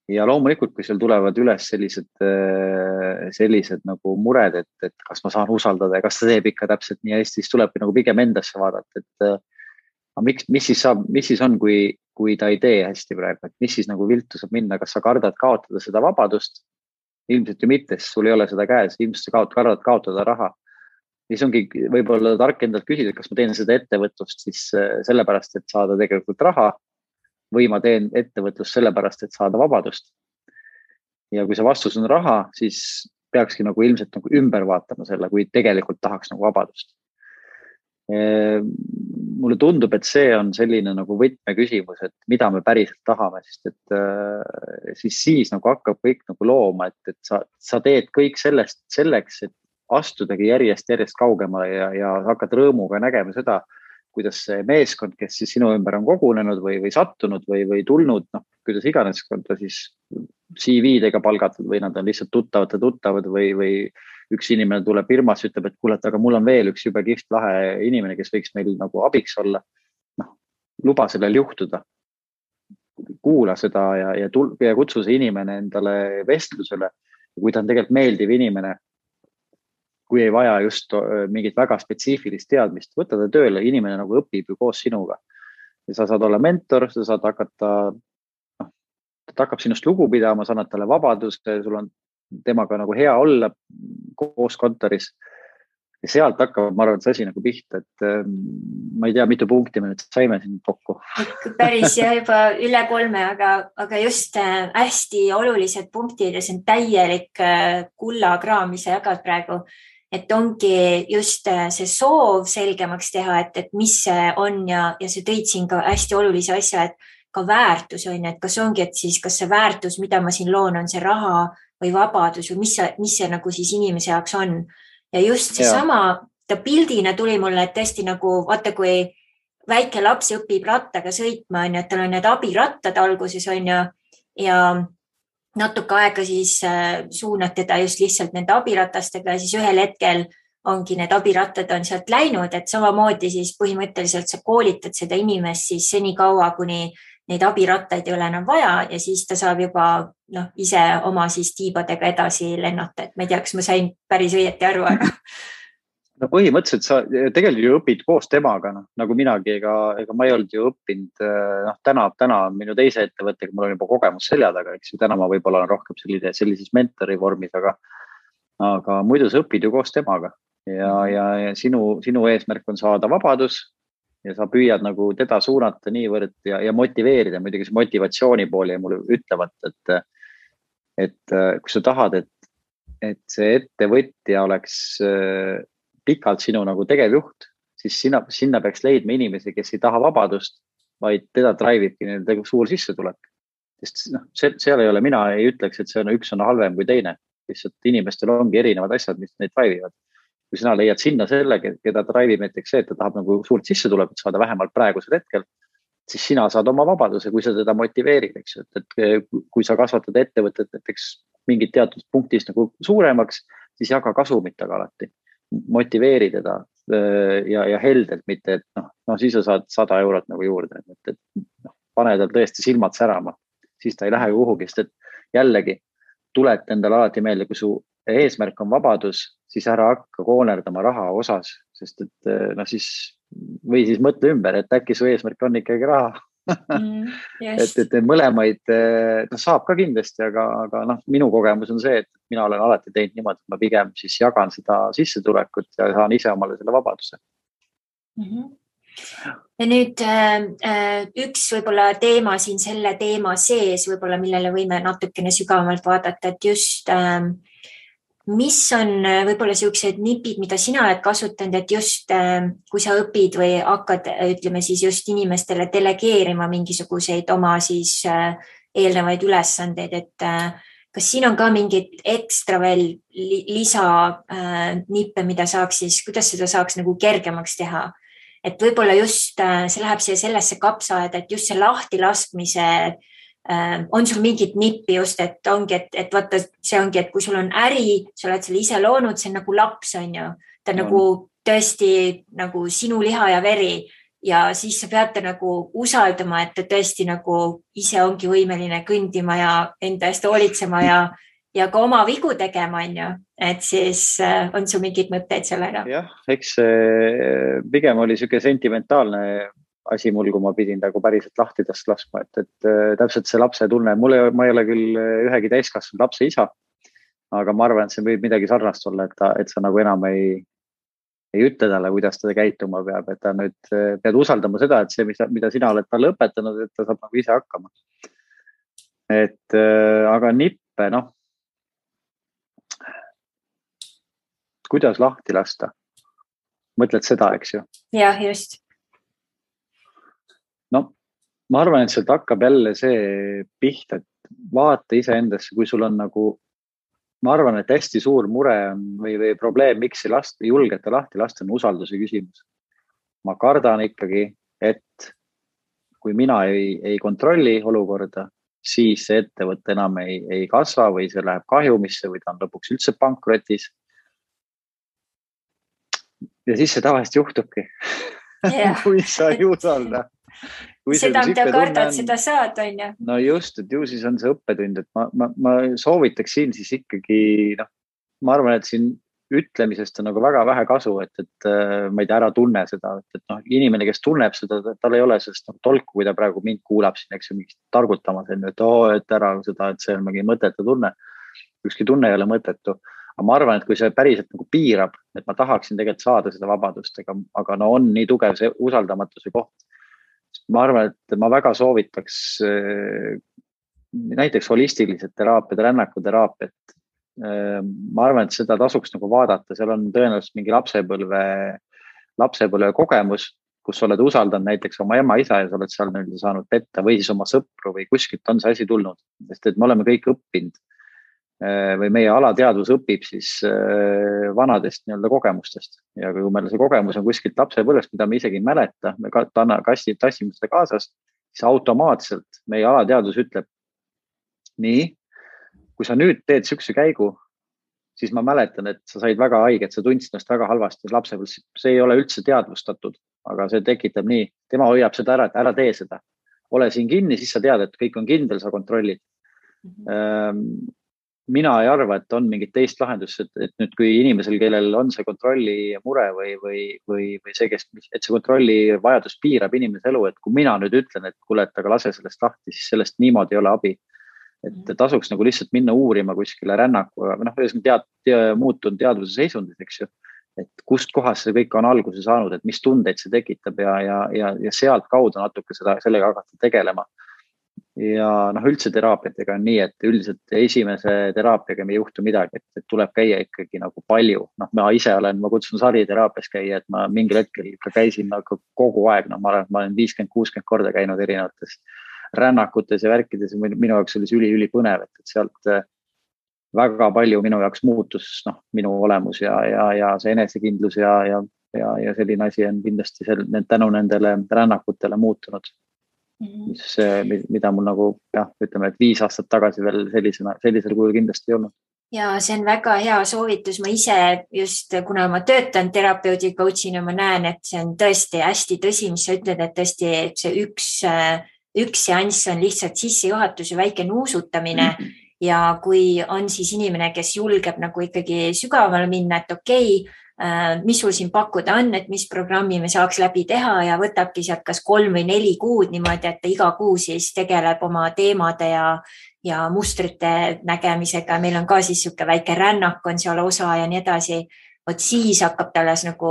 Ja loomulikult, kui seal tulevad üles sellised nagu mured, et kas ma saan usaldada ja kas ta teeb ikka täpselt nii hästi, siis tuleb nagu pigem endasse vaadata, et mis siis on, kui ta ei tee hästi praegu, et mis siis nagu viltu saab minna, kas sa kardad kaotada seda vabadust? Ilmselt ju mitte, sest sul ei ole seda käes, ilmselt sa kardad kaotada raha. Siis ongi võib-olla tark endalt küsida, kas ma teen seda ettevõtlust siis sellepärast, et saada tegelikult raha või ma teen ettevõtlust sellepärast, et saada vabadust. Ja kui see vastus on raha, siis peakski nagu ilmselt nagu ümber vaatama selle, kui tegelikult tahaks nagu vabadust. mulle tundub, et see on selline nagu võtmeküsimus, et mida me päriselt tahame, sest et siis nagu hakkab kõik nagu looma, et sa teed kõik selleks, et astudagi järjest kaugemale ja hakkad rõõmuga nägema seda, kuidas see meeskond, kes siis sinu ümber on kogunenud või sattunud või tulnud, noh, kuidas iganes, on ta siis CV-dega palgatud või nad on lihtsalt tuttavad või üks inimene tuleb firmas, ütleb, et kuule, aga mul on veel üks jube kihvt lahe inimene, kes võiks meil nagu abiks olla. Noh, luba sellel juhtuda. Kuula seda ja kutsu see inimene endale vestlusele. Kui ta on tegelikult meeldiv inimene, kui ei vaja just mingit väga spetsiifilist teadmist, võtta ta tööle, inimene nagu õpib ju koos sinuga. Ja sa saad olla mentor, sa saad hakata, ta hakkab sinust lugu pidama, sa annad talle vabadust, sul on temaga nagu hea olla koos kontoris. Ja sealt hakkab, ma arvan, see asi nagu pihta, et ma ei tea, mitu punkti me nüüd saime siin kokku. Päris ja juba üle 3, aga just hästi olulised punktid ja see on täielik kullakraam, mis sa jagad praegu. Et ongi just see soov selgemaks teha, et mis see on ja see tõid siin ka hästi olulise asja, et ka väärtus on, et kas ongi, et siis kas see väärtus, mida ma siin loon, on see raha või vabadus või mis see nagu siis inimese jaoks on. Ja just see sama, ta pildina tuli mulle, et tõesti nagu, vaata kui väike laps õpib rattaga sõitma, on ju, et tal on need abirattad alguses on ju, ja natuke aega siis suunad teda just lihtsalt nende abiratastega ja siis ühel hetkel ongi need abirattad on sealt läinud, et samamoodi siis põhimõtteliselt sa koolitad seda inimest siis seni kaua, kuni neid abirattaid ei ole enam vaja ja siis ta saab juba ise oma siis tiibadega edasi lennata, et ma ei tea, kas ma sain päris õieti aru, aga. No põhimõtteliselt sa tegelikult ju õpid koos temaga, nagu minagi, ega ma ei olnud ju õppinud, täna minu teise ettevõttega, mul on juba kogemus selja taga, eks ju, täna ma võib-olla olen rohkem sellises mentori vormis, aga muidu sa õpid ju koos temaga ja sinu eesmärk on saada vabadus ja sa püüad nagu teda suunata niivõrd ja motiveerida, muidugi see motivatsiooni pooli ja mulle ütlevad, et kui sa tahad, et see ettevõtja oleks pikalt sinu nagu tegevjuht, siis sinna peaks leidma inimesi, kes ei taha vabadust, vaid teda drive'ibki nende suur sissetulek. Sest seal ei ole, mina ei ütleks, et see üks on halvem kui teine. Lihtsalt inimestel ongi erinevad asjad, mis neid drive'ivad. Kui sina leiad sinna selle, keda drive'ib näiteks see, et ta tahab nagu suurt sissetulekut saada vähemalt praegusel hetkel, siis sina saad oma vabaduse, kui sa teda motiveerid, eks ju. Et kui sa kasvatad ettevõtet näiteks mingit teatud punktist nagu suuremaks, siis jaga kasumitaga alati. Motiveeri teda ja heldelt, mitte, et siis sa saad 100 eurot nagu juurde, et pane tal tõesti silmad särama, siis ta ei lähe kuhugi, sest et jällegi tuled endale alati meelde, kui su eesmärk on vabadus, siis ära hakka koonerdama raha osas, sest et või siis mõtle ümber, et äkki su eesmärk on ikkagi raha. Yes. et mõlemaid saab ka kindlasti, aga minu kogemus on see, et mina olen alati teinud niimoodi, et ma pigem siis jagan seda sissetulekut ja saan ise omale selle vabaduse. Ja nüüd üks võib-olla teema siin selle teema sees, võib-olla millele võime natukene sügavamalt vaadata, et just mis on võib-olla sellised nipid, mida sina oled kasutanud, et just kui sa õpid või hakkad, ütleme siis just inimestele delegeerima mingisuguseid oma siis eelnevaid ülesandeid, et kas siin on ka mingid ekstra veel lisa nippe, mida saaks siis, kuidas seda saaks nagu kergemaks teha? Et võib-olla just see läheb sellesse kapsaaeda, et just see lahtilaskmise on sul mingit nippi just, et ongi, et vaata, see ongi, et kui sul on äri, sa oled selle ise loonud, see on nagu laps, on ju. Ta on nagu tõesti nagu sinu liha ja veri ja siis sa pead nagu usaldama, et ta tõesti nagu ise ongi võimeline kõndima ja enda eest hoolitsema ja ka oma vigu tegema, on ju. Et siis on sul mingid mõtteid sellega? Jah, eks pigem oli selline sentimentaalne asi mul, kui ma pidin nagu päriselt lahtidest laskma, et täpselt see lapse tunne, ma ei ole küll ühegi täiskasvanud lapse isa, aga ma arvan, et see võib midagi sarnast olla, et sa nagu enam ei ütle talle, kuidas ta käituma peab, et ta nüüd pead usaldama seda, et see, mida sina oled talle õpetanud, et ta saab nagu ise hakkama. Aga nippe, kuidas lahti lasta? Mõtled seda, eks ju? Jah, just. ma arvan, et sealt hakkab jälle see pihta, et vaata iseendasse, kui sul on nagu, ma arvan, et hästi suur mure on või probleem, miks ei julgeta lahti lasta, on usalduse küsimus. Ma kardan ikkagi, et kui mina ei kontrolli olukorda, siis see ettevõte enam ei kasva või see läheb kahjumisse või ta on lõpuks üldse pankrotis. Ja siis see tavaliselt juhtubki. Kui sa ei usalda. Seda, mida kardad, seda saad, on ju. No just, et ju siis on see õppetund, et ma soovitaks siin siis ikkagi, ma arvan, et siin ütlemisest on nagu väga vähe kasu, et ma ei tea, ära tunne seda, et inimene, kes tunneb seda, tal ei ole sellest tolku, kui ta praegu mind kuulab siin, eks ju, mingist targutamas, et ära seda, et see on mingi mõttetu tunne. Ükski tunne ei ole mõttetu. Aga ma arvan, et kui see päriselt nagu piirab, et ma tahaksin tegelikult saada seda vabadust, aga on nii tugev see usaldamatuse koht. Ma arvan, et ma väga soovitaks näiteks holistilised teraapiad, rännakuteraapiat. Ma arvan, et seda tasuks nagu vaadata, seal on tõenäoliselt mingi lapsepõlve kogemus, kus oled usaldanud näiteks oma ema, isa ja sa oled seal saanud petta või siis oma sõpru või kuskilt on see asi tulnud, sest et me oleme kõik õppinud või meie alateadvus õpib siis vanadest kogemustest ja kui meil see kogemus on kuskilt lapsepõlvest, mida me isegi ei mäleta, me tassime seda kaasas, siis automaatselt meie alateadvus ütleb nii, kui sa nüüd teed sükse käigu, siis ma mäletan, et sa said väga haiget, sa tundsid ennast väga halvasti lapsepõlves, see ei ole üldse teadvustatud, aga see tekitab nii, tema hoiab seda ära, et ära tee seda. Ole siin kinni, siis sa tead, et kõik on kindel, sa kontrollid. Mina ei arva, et on mingit teist lahendust, et nüüd kui inimesel, kellel on see kontrolli mure või see, et see kontrolli vajadus piirab inimese elu, et kui mina nüüd ütlen, et kuule, et aga lase sellest lahti, siis sellest niimoodi ei ole abi. Et tasuks nagu lihtsalt minna uurima kuskile rännaku, muutunud teadvuse seisundis, eks ju, et kust kohast see kõik on alguse saanud, et mis tundeid see tekitab ja sealt kaudu natuke sellega hakata tegelema. Ja üldse teraapiatega on nii, et üldiselt esimese teraapiaga me ei juhtu midagi, et tuleb käia ikkagi nagu palju. Ma ise ma kutsun sariteraapias käia, et ma mingil hetkel ikka käisin nagu kogu aeg, ma olen 50-60 korda käinud erinevates rännakutes ja värkides ja minu jaoks oli see üli põnev, et sealt väga palju minu jaoks muutus minu olemus ja see enesekindlus ja selline asi on kindlasti tänu nendele rännakutele muutunud. Mida mul nagu, ütleme, et 5 aastat tagasi veel sellisel kujul kindlasti ei olnud. Ja see on väga hea soovitus. Ma ise just, kuna ma töötan terapeudi coachina, ma näen, et see on tõesti hästi tõsi, mis sa ütled, et tõesti see üks seanss on lihtsalt sissejuhatus ja väike nuusutamine. Ja kui on siis inimene, kes julgeb nagu ikkagi sügavale minna, et okei, mis sul siin pakkuda on, et mis programmi me saaks läbi teha ja võtabki sealt kas 3 või 4 kuud niimoodi, et ta iga kuu siis tegeleb oma teemade ja mustrite nägemisega. Meil on ka siis siuke väike rännak on seal osa ja nii edasi. Vot siis hakkab talles nagu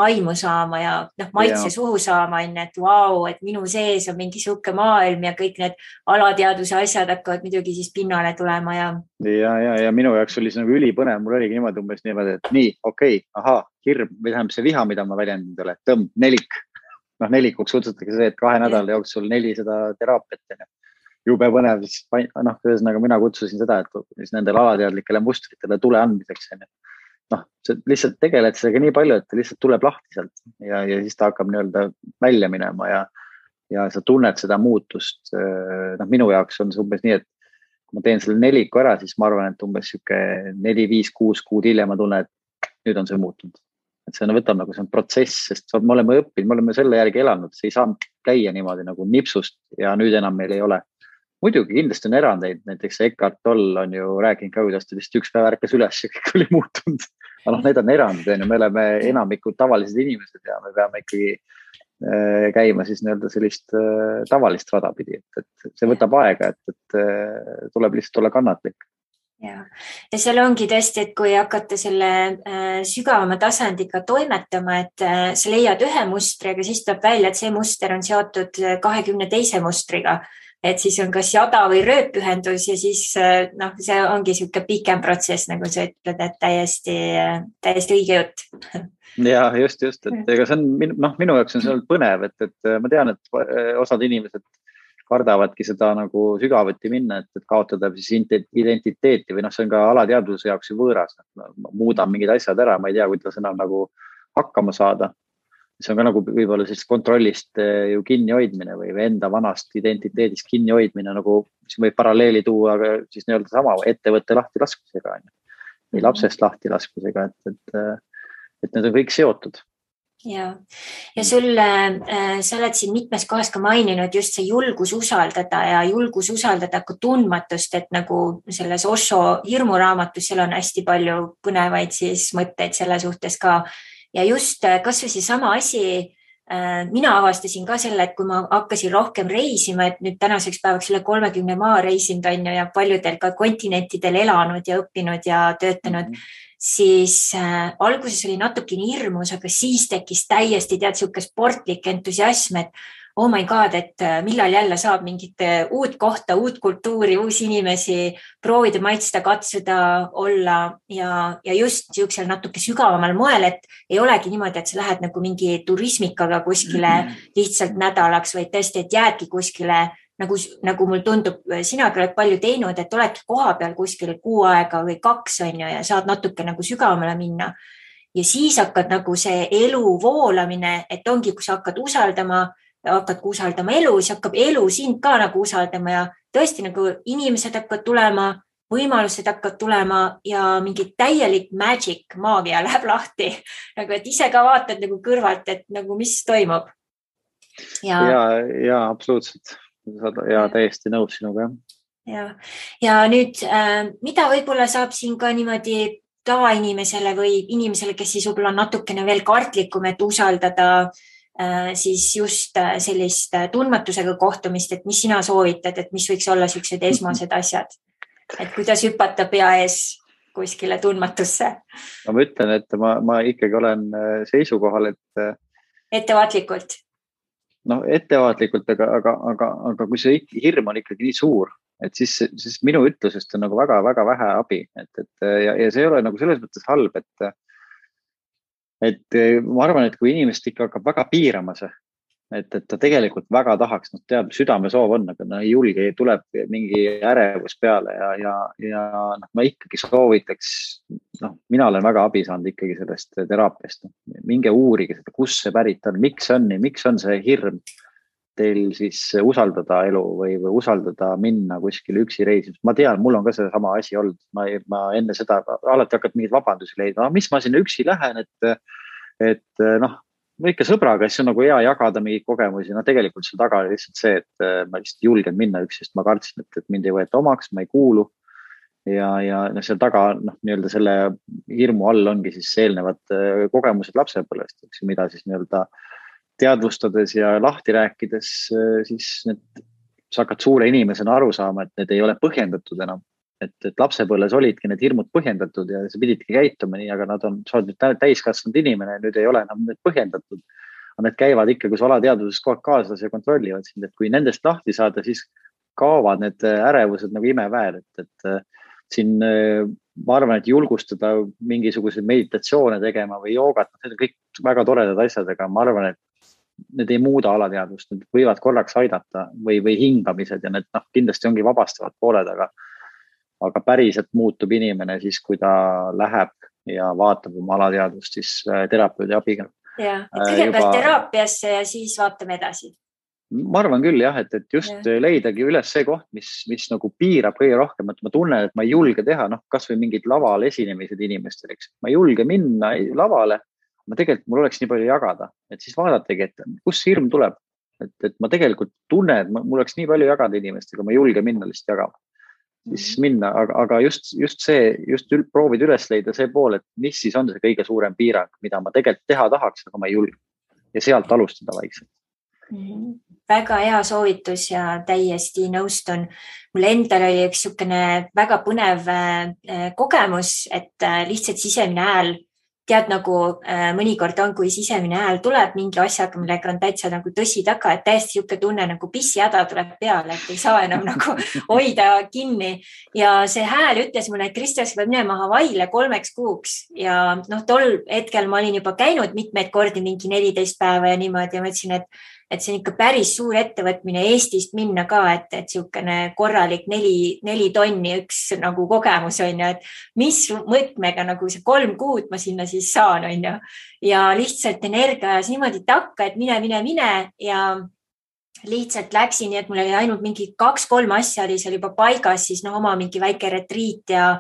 aimu saama ja maitse suhu saama, et vau, et minu sees on mingi siuke maailm ja kõik need alateadvuse asjad hakkavad muidugi siis pinnale tulema. Ja minu jaoks oli see nagu ülipõnev, mul oligi niimoodi umbes niimoodi, et nii, okei, hirm, või tähendab see viha, mida ma väljendin teile, tõmb, nelik. Nelikuks kutsutakse see, et 2 nädala jooksul 400 teraapiat. Jube põnev, ühesõnaga mina kutsusin seda, et nendele alateadlikele mustritele tule andmiseks. See lihtsalt tegeled sellega nii palju, et lihtsalt tuleb lahti sealt ja siis ta hakkab välja minema ja sa tunned seda muutust. Minu jaoks on see umbes nii, et kui ma teen selle 4 ära, siis ma arvan, et umbes 4, 5, 6 kuud hiljem ma tunnen, et nüüd on see muutunud. Et see võtab nagu see on protsess, sest me oleme õppinud, me oleme selle järgi elanud, see ei saa käia niimoodi nagu nipsust ja nüüd enam meil ei ole. Muidugi kindlasti on erandeid, näiteks Eckhart Tolle on ju rääkinud ka, kuidas ta vist üks päev ärkas üles ja kõik oli muutunud. Aga need on erandid, me oleme enamikud tavalised inimesed ja me peame ikkagi käima siis sellist tavalist rada pidi, et see võtab aega, et tuleb lihtsalt olla kannatlik. Ja seal ongi tõesti, et kui hakata selle sügavama tasandiga toimetama, et sa leiad ühe mustri, aga siis tuleb välja, et see muster on seotud 22 mustriga. Et siis on kas jada või rööpühendus ja siis see ongi siuke pikem protsess, nagu sa ütled, et täiesti õige jutt. Ja just, et ega see on minu jaoks on see olnud põnev, et ma tean, et osad inimesed kardavadki seda nagu sügavuti minna, et kaotada siis identiteeti või see on ka alateadvuse jaoks ju võõras. Ma muudan mingid asjad ära, ma ei tea, kuidas enam nagu hakkama saada. See on ka nagu võib-olla sellist kontrollist ju kinni hoidmine või enda vanast identiteedist kinni hoidmine, nagu siis võib paralleeli tuua siis nii-öelda sama ettevõtte lahti laskmisega või lapsest lahti laskmisega, et need on kõik seotud. Ja sul, sa oled siin mitmes kohas ka maininud just see julgus usaldada ja julgus usaldada ka tundmatust, et nagu selles Osho hirmuraamatus, seal on hästi palju põnevaid siis mõtteid selle suhtes ka. Ja just kas või see sama asi, mina avastasin ka selle, et kui ma hakkasin rohkem reisima, et nüüd tänaseks päevaks üle 30 maa reisinud on ja paljudel ka kontinentidel elanud ja õppinud ja töötanud, siis alguses oli natukene hirmus, aga siis tekkis täiesti siuke sportlik entusiasm, et oh my god, et millal jälle saab mingit uut kohta, uut kultuuri, uusi inimesi proovida, maitsta, katsuda, olla ja just siuksel natuke sügavamal moel, et ei olegi niimoodi, et sa lähed nagu mingi turismikaga kuskile lihtsalt nädalaks, vaid tõesti, et jäädki kuskile nagu mul tundub, sinagi oled palju teinud, et oledki koha peal kuskil 6 aega või 2 on ja saad natuke nagu sügavamale minna. Ja siis hakkad nagu see elu voolamine, et ongi, kui sa hakkad usaldama elu, siis hakkab elu sind ka nagu usaldama ja tõesti nagu inimesed hakkavad tulema, võimalused hakkavad tulema ja mingi täielik magic, maagia läheb lahti. Nagu, et ise ka vaatad nagu kõrvalt, et nagu mis toimub. Ja absoluutselt. Ja täiesti nõus sinuga. Ja nüüd, mida võib-olla saab siin ka niimoodi tavainimesele või inimesele, kes siis võib-olla natukene veel kartlikum, et usaldada siis just sellist tundmatusega kohtumist, et mis sina soovitad, et mis võiks olla sellised esmased asjad, et kuidas hüpata pea ees kuskile tundmatusse? Ma ütlen, et ma ikkagi olen seisukohal, et ettevaatlikult. Ettevaatlikult, aga kui see hirm on ikkagi nii suur, et siis minu ütlusest on nagu väga-väga vähe abi, ja see ei ole nagu selles mõttes halb, et ma arvan, et kui inimest ikka hakkab väga piirama see, et ta tegelikult väga tahaks, teab, südamesoov on, aga ei julge, tuleb mingi ärevus peale ja ma ikkagi soovitaks, mina olen väga abi saanud ikkagi sellest teraapiast. Minge uurige seda, kus see pärit on, miks on see hirm teil siis usaldada elu või usaldada minna kuskile üksi reisimas. Ma tean, mul on ka see sama asi olnud. Ma enne seda alati hakkad mingeid vabandusi leidma. Mis ma sinna üksi lähen, et ikka sõbraga, siis on nagu hea jagada mingeid kogemusi. Tegelikult see taga oli lihtsalt see, et ma lihtsalt julgen minna üksi, sest ma kartsin, et mind ei võeta omaks, ma ei kuulu. Ja seal taga, nii-öelda selle hirmu all ongi siis eelnevad kogemused lapsepõlvest, mida siis nii-öelda teadvustades ja lahti rääkides, siis sa hakkad suure inimesena aru saama, et need ei ole põhjendatud enam. Et lapsepõlves olidki need hirmud põhjendatud ja sa pididki käituma nii, aga sa oled nüüd täiskasvanud inimene ja nüüd ei ole enam need põhjendatud. Need käivad ikka, kui sa alateadvuses kogu aeg kaasas ja kontrollivad sind, et kui nendest lahti saada, siis kaovad need ärevused nagu imeväel, et siin ma arvan, et julgustada mingisuguseid meditatsioone tegema või joogat, need on kõik väga toredad asjad, aga ma arvan, et need ei muuda alateadvust, need võivad korraks aidata või hingamised ja need kindlasti ongi vabastavad pooled, aga päriselt muutub inimene siis, kui ta läheb ja vaatab oma alateadvust siis terapeudi abiga. Ja, et kõigepealt teraapiasse ja siis vaatame edasi. Ma arvan küll jah, et just leidagi üles see koht, mis nagu piirab kõige rohkem, et ma tunnen, et ma ei julge teha, kas või mingid laval esinemised inimestel, eks. Ma ei julge minna lavale, tegelikult mul oleks nii palju jagada, et siis vaadategi, et kus hirm tuleb, et ma tegelikult tunnen, et mul oleks nii palju jagada inimestega, ma ei julge minna lihtsalt jagama. Siis minna, aga just proovid üles leida see pool, et mis siis on see kõige suurem piirang, mida ma tegelikult teha tahaks, aga ma ei julge. Ja sealt alustada vaikselt. Väga hea soovitus ja täiesti nõustun. Mul endal oli üks niisugune väga põnev kogemus, et lihtsalt sisemine hääl, tead nagu mõnikord on, kui sisemine hääl tuleb mingi asjaga, millega on täitsa nagu tõsi taga, et täiesti niisugune tunne nagu pissihäda tuleb peale, et ei saa enam nagu hoida kinni. Ja see hääl ütles mulle, et Kristus peab minema Hawaiile 3 kuuks ja tol hetkel ma olin juba käinud mitmeid kordi mingi 14 päeva ja niimoodi ja ma ütlesin, et see on ikka päris suur ettevõtmine Eestist minna ka, et niisugune korralik 4 tonni üks nagu kogemus on ju, et mis mõõtmega nagu see 3 kuud ma sinna siis saan on ju. Ja lihtsalt energia ajas niimoodi takka, et mine ja lihtsalt läksin, nii et mul oli ainult mingi 2-3 asja oli seal juba paigas, siis oma mingi väike retriit ja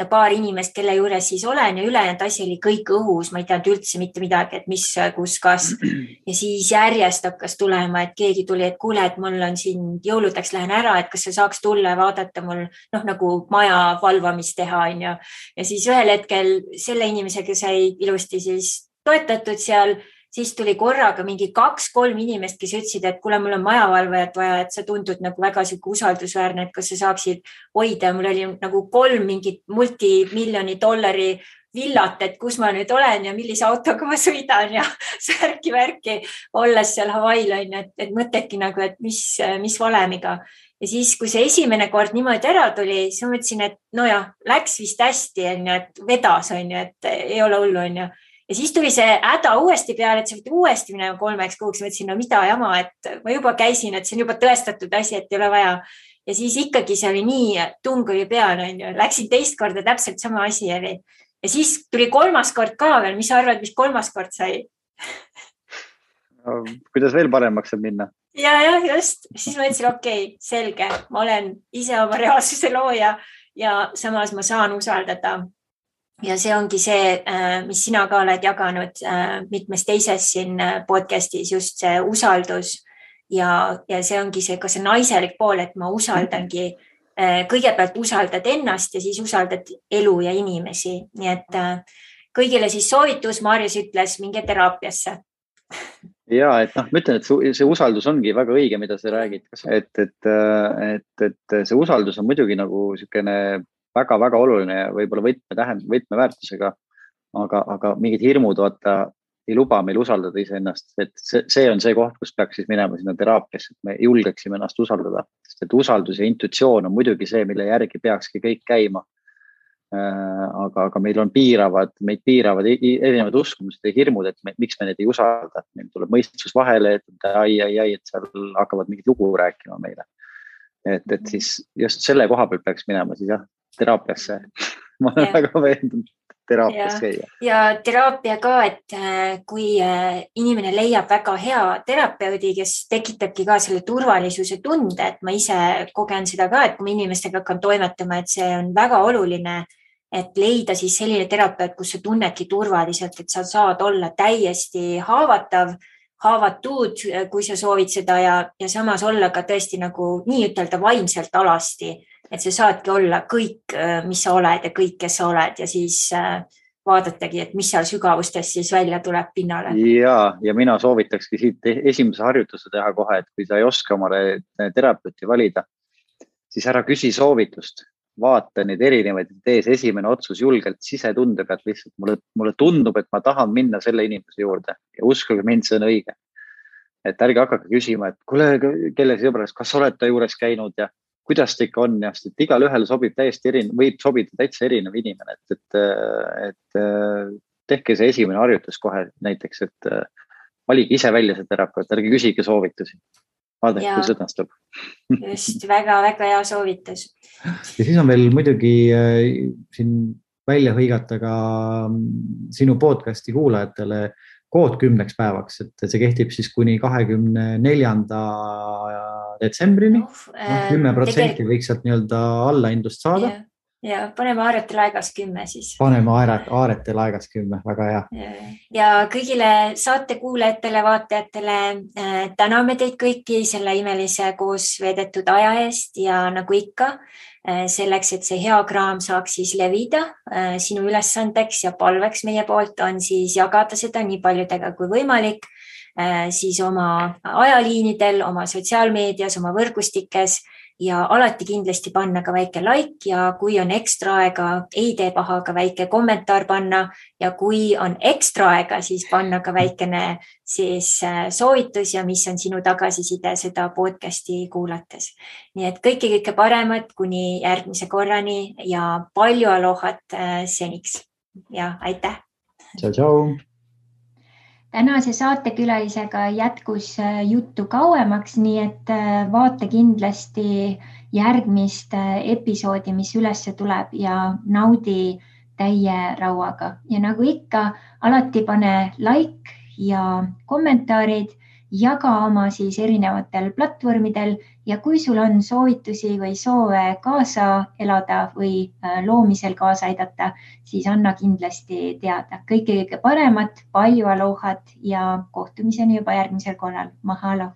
paar inimest, kelle juures siis olen ja ülejäänud asi oli kõik õhus. Ma ei teadnud üldse mitte midagi, et mis, kus, kas. Ja siis järjest hakkas tulema, et keegi tuli, et kuule, et mul on siin jõuludeks lähen ära, et kas sa saaks tulla ja vaadata mul nagu maja valvamist teha on ju. Ja siis ühel hetkel selle inimesega sai ilusti siis toetatud seal. Siis tuli korraga mingi 2-3 inimest, kes ütlesid, et kuule, mul on majavalvajat vaja, et sa tundud nagu väga usaldusväärne, et kas sa saaksid hoida. Mul oli nagu 3 mingit multimiljoni dollari villat, et kus ma nüüd olen ja millise autoga ma sõidan ja särki-värki olles seal Hawaii'l on, et mõtledki nagu, et mis valemiga. Ja siis, kui see esimene kord niimoodi ära tuli, siis ma mõtlesin, et läks vist hästi, et vedas on ju, et ei ole hullu on ju. Ja siis tuli see häda uuesti peale, et sa võid uuesti minema 3 kuuks. Mõtlesin, mida jama, et ma juba käisin, et see on juba tõestatud asi, et ei ole vaja. Ja siis ikkagi see oli nii, tung oli peale, läksin teist korda täpselt sama asi oli. Ja siis tuli 3. kord ka veel. Mis sa arvad, mis 3. kord sai? No, kuidas veel paremaks saab minna? Ja, just. Siis ma mõtlesin, okei, selge. Ma olen ise oma reaalsuse looja ja samas ma saan usaldada. Ja see ongi see, mis sina ka oled jaganud mitmes teises siin podcastis, just see usaldus ja see ongi see, ka see naiselik pool, et ma usaldangi, kõigepealt usaldad ennast ja siis usaldad elu ja inimesi. Nii et kõigile siis soovitus, Maarjas ütles, minge teraapiasse. Ja, et ma ütlen, et see usaldus ongi väga õige, mida sa räägid, et see usaldus on muidugi nagu selline väga-väga oluline ja võib-olla võtmeväärtusega, aga mingid hirmud ei luba meil usaldada iseennast. Et see on see koht, kus peaks siis minema sinna teraapiasse, et me julgeksime ennast usaldada. Sest et usaldus ja intuitsioon on muidugi see, mille järgi peakski kõik käima. Aga meil on meid piiravad erinevad uskumused ja hirmud, et miks me neid ei usalda. Meil tuleb mõistus vahele, et seal hakkavad mingid lugu rääkima meile. Et siis just selle koha peal peaks minema siis teraapiasse. Ma olen väga veendunud teraapias käia. Ja teraapia ka, et kui inimene leiab väga hea terapeudi, kes tekitabki ka selle turvalisuse tunde, et ma ise kogen seda ka, et kui ma inimestega hakkan toimetama, et see on väga oluline, et leida siis selline terapeut, kus sa tunnedki turvaliselt, et sa saad olla täiesti haavatud, kui sa soovid seda ja samas olla ka tõesti nagu nii ütelda vaimselt alasti, et sa saadki olla kõik, mis sa oled ja kõik, kes sa oled ja siis vaadatagi, et mis seal sügavustes siis välja tuleb pinnale. Ja mina soovitakski siit esimese harjutuse teha kohe, et kui sa ei oska omale terapeuti valida, siis ära küsi soovitust. Vaata neid erinevaid tees esimene otsus julgelt sisetunde pealt lihtsalt. Mulle tundub, et ma tahan minna selle inimese juurde ja uskuge mind, see on õige. Et ärge hakake küsima, et kuule, kelle sõbras, kas oled ta juures käinud ja kuidas ta ikka on ja et igal ühel sobib täiesti võib sobida täitsa erinev inimene, et tehke see esimene harjutus kohe näiteks, et valige ise välja see terapeut, ärge küsige soovitusi. Vaadake, kui sõnastub. Just, väga-väga hea soovitus. Ja siis on veel muidugi siin välja hõigata ka sinu podcasti kuulajatele kood 10 päevaks, et see kehtib siis kuni 24. detsembrini. 10% võiks sealt nii-öelda allaindust saada. Ja paneme Aaretel aegas 10 siis. Paneme Aaretel aegas 10, väga hea. Ja kõigile saate kuulajatele, vaatajatele täname teid kõiki selle imelise koos veedetud aja eest ja nagu ikka, selleks, et see hea kraam saaks siis levida, sinu ülesandeks ja palveks meie poolt on siis jagada seda nii paljudega kui võimalik, siis oma ajaliinidel, oma sotsiaalmeedias, oma võrgustikes ja alati kindlasti panna ka väike like ja kui on ekstra aega, ei tee paha ka väike kommentaar panna ja kui on ekstra aega, siis panna ka väikene siis soovitus ja mis on sinu tagasiside seda podcasti kuulates. Nii et kõike paremat kuni järgmise korrani ja palju alohat seniks ja aitäh! Tšau, tšau! tänase saatekülalisega jätkus juttu kauemaks, nii et vaata kindlasti järgmist episoodi, mis üles tuleb ja naudi täie rauaga. Ja nagu ikka, alati pane like ja kommentaarid, jaga oma siis erinevatel platvormidel ja kui sul on soovitusi või soove kaasa elada või loomisel kaasa aidata, siis anna kindlasti teada. Kõike paremat, palju alohat ja kohtumiseni juba järgmisel korral. Mahalo!